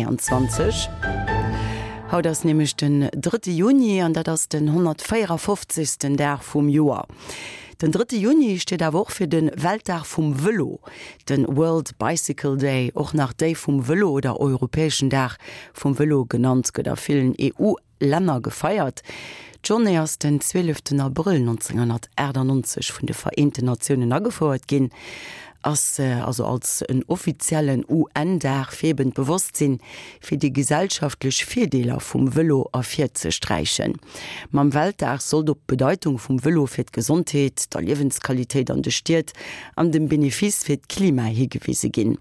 23. Haut ass nämlech den drëtte Juni an dat ass den 154. Dag vum Joer. Den drëtte Juni steet awer och fir de Weltdag vum Vëlo, de World Bicycle Day, och nach Day vum Vëlo oder Europäeschen Dag vum Vëlo genannt, gëtt a villen EU Länner gefeiert. D'Journée ass den 12 Abrëll 1998 vun de Vereenten Natiounen agefouert ginn, ass also als en offiziellen UN-Dag fir eben d'Bewosstsinn fir déi gesellschaftlech Virdeeler vum Vëlo ervirzesträichen. Mam Weltdag sollt op d'Bedeitung vum Vëlo fir d'Gesondheet, der Liewensqualitéit an de Stied an dem Benefice fir d'Klima higewise ginn.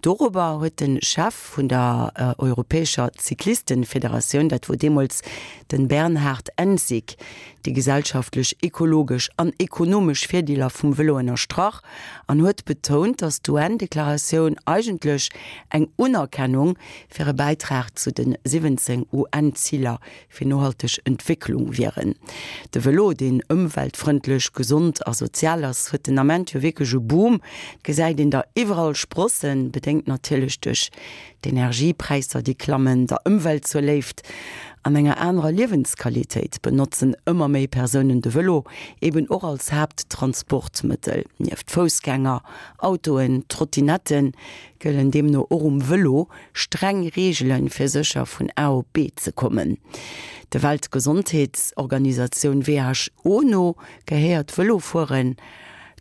Dorobber huet de Chef vun der europäescher Cyclistenfederatioun, dat wor deemools den Bernhard Ensig, déi gesellschaftlech, ekologesch an ekonomesch Virdeeler vum Vëlo ënnerstrach an huet betount, datt d'UN-Deklaratioun eigentlech eng Unerkennung fir e Bäitrag zu de 17 UN-Ziler fir nohalteg Entwécklung wieren. De Vëlo, deen ëmweltfrëndlech, gesond a sozial ass, huet den Ament jo wierklech e Boom. Et gesäit een der iwwerall sprossen, bedéngt natierlech duerch d'Energiepräisser, déi klammen, der Ëmwelt zur Léift an enger anerer Liewensqualitéit benotzen ëmmer méi Persounen de Vëlo eben och als Haapttransportmëttel. Nieft Foussgänger, Autoen, Trottinetten gëllen deemno och um Vëlo Streng Reegelen, fir sécher vun A op B ze kommen. Der Weltgesondheetsorganisatioun WHO no gehéiert Vëlofueren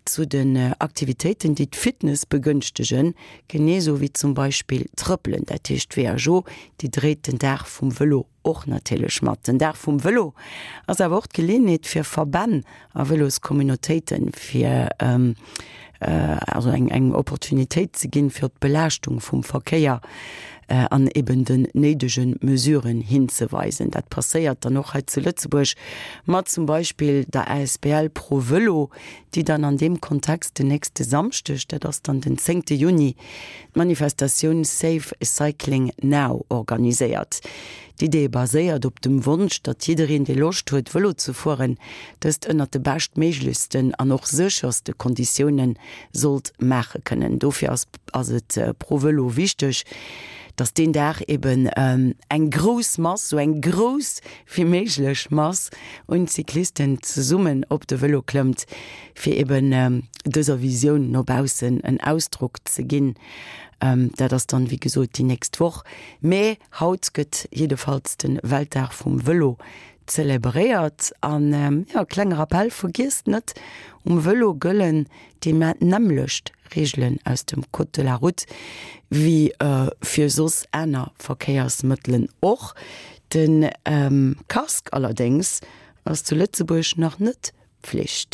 zu den Aktivitéiten, déi d'Fitness begënschtegen, genee sou wéi zum Beispill Trëppelen. Dat heescht, d'WHO, déi dréit den Dag vum Vëlo och natierlech mat. Den Dag vum Vëlo ass awer och d'Geleeënheet fir Verbänn a Vëloscommunautéiten, fir also eng eng Opportunitéit ze ginn, fir op d'Belaaschtung vum Verkéier an eben den néidege Mesuren hinzeweisen. Dat passéiert dann och hei zu Lëtzebuerg mat zum Beispill der asbl Pro Vëlo, déi dann an deem Kontext den nächste Samschdeg, dat ass dann den zéngte Juni, d'Manifestatioun Safe Cycling Now organiséiert. D'Idee baséiert op dem Wonsch, datt jiddereen, dee Loscht huet, Vëlo ze fueren, dëst ënnert de beschtméiglechsten an och sécherste Konditioune sollt maache kënnen. Dofir ass ass et pro Vëlo wichteg, datt deen Dag eben eng grouss Mass, sou eng grouss wéi méiglech Mass un Cyclisten zesummen op de Vëlo klëmmt, fir eben dëser Visioun no baussen en Ausdrock ze ginn. Dat ass dann, wéi gesot, déi nächst Woch. Mä haut gëtt jiddefalls de Weltdag vum Vëlo zelebréiert. An, jo, klenge Rappell, Vergiesst net, um Vëlo gëllen déi nämmlecht Reegelen aus dem Code de la route wéi fir soss aner Verkéiersmëttelen och. De Casque allerdéngs ass zu Lëtzebuerg nach net Pflicht.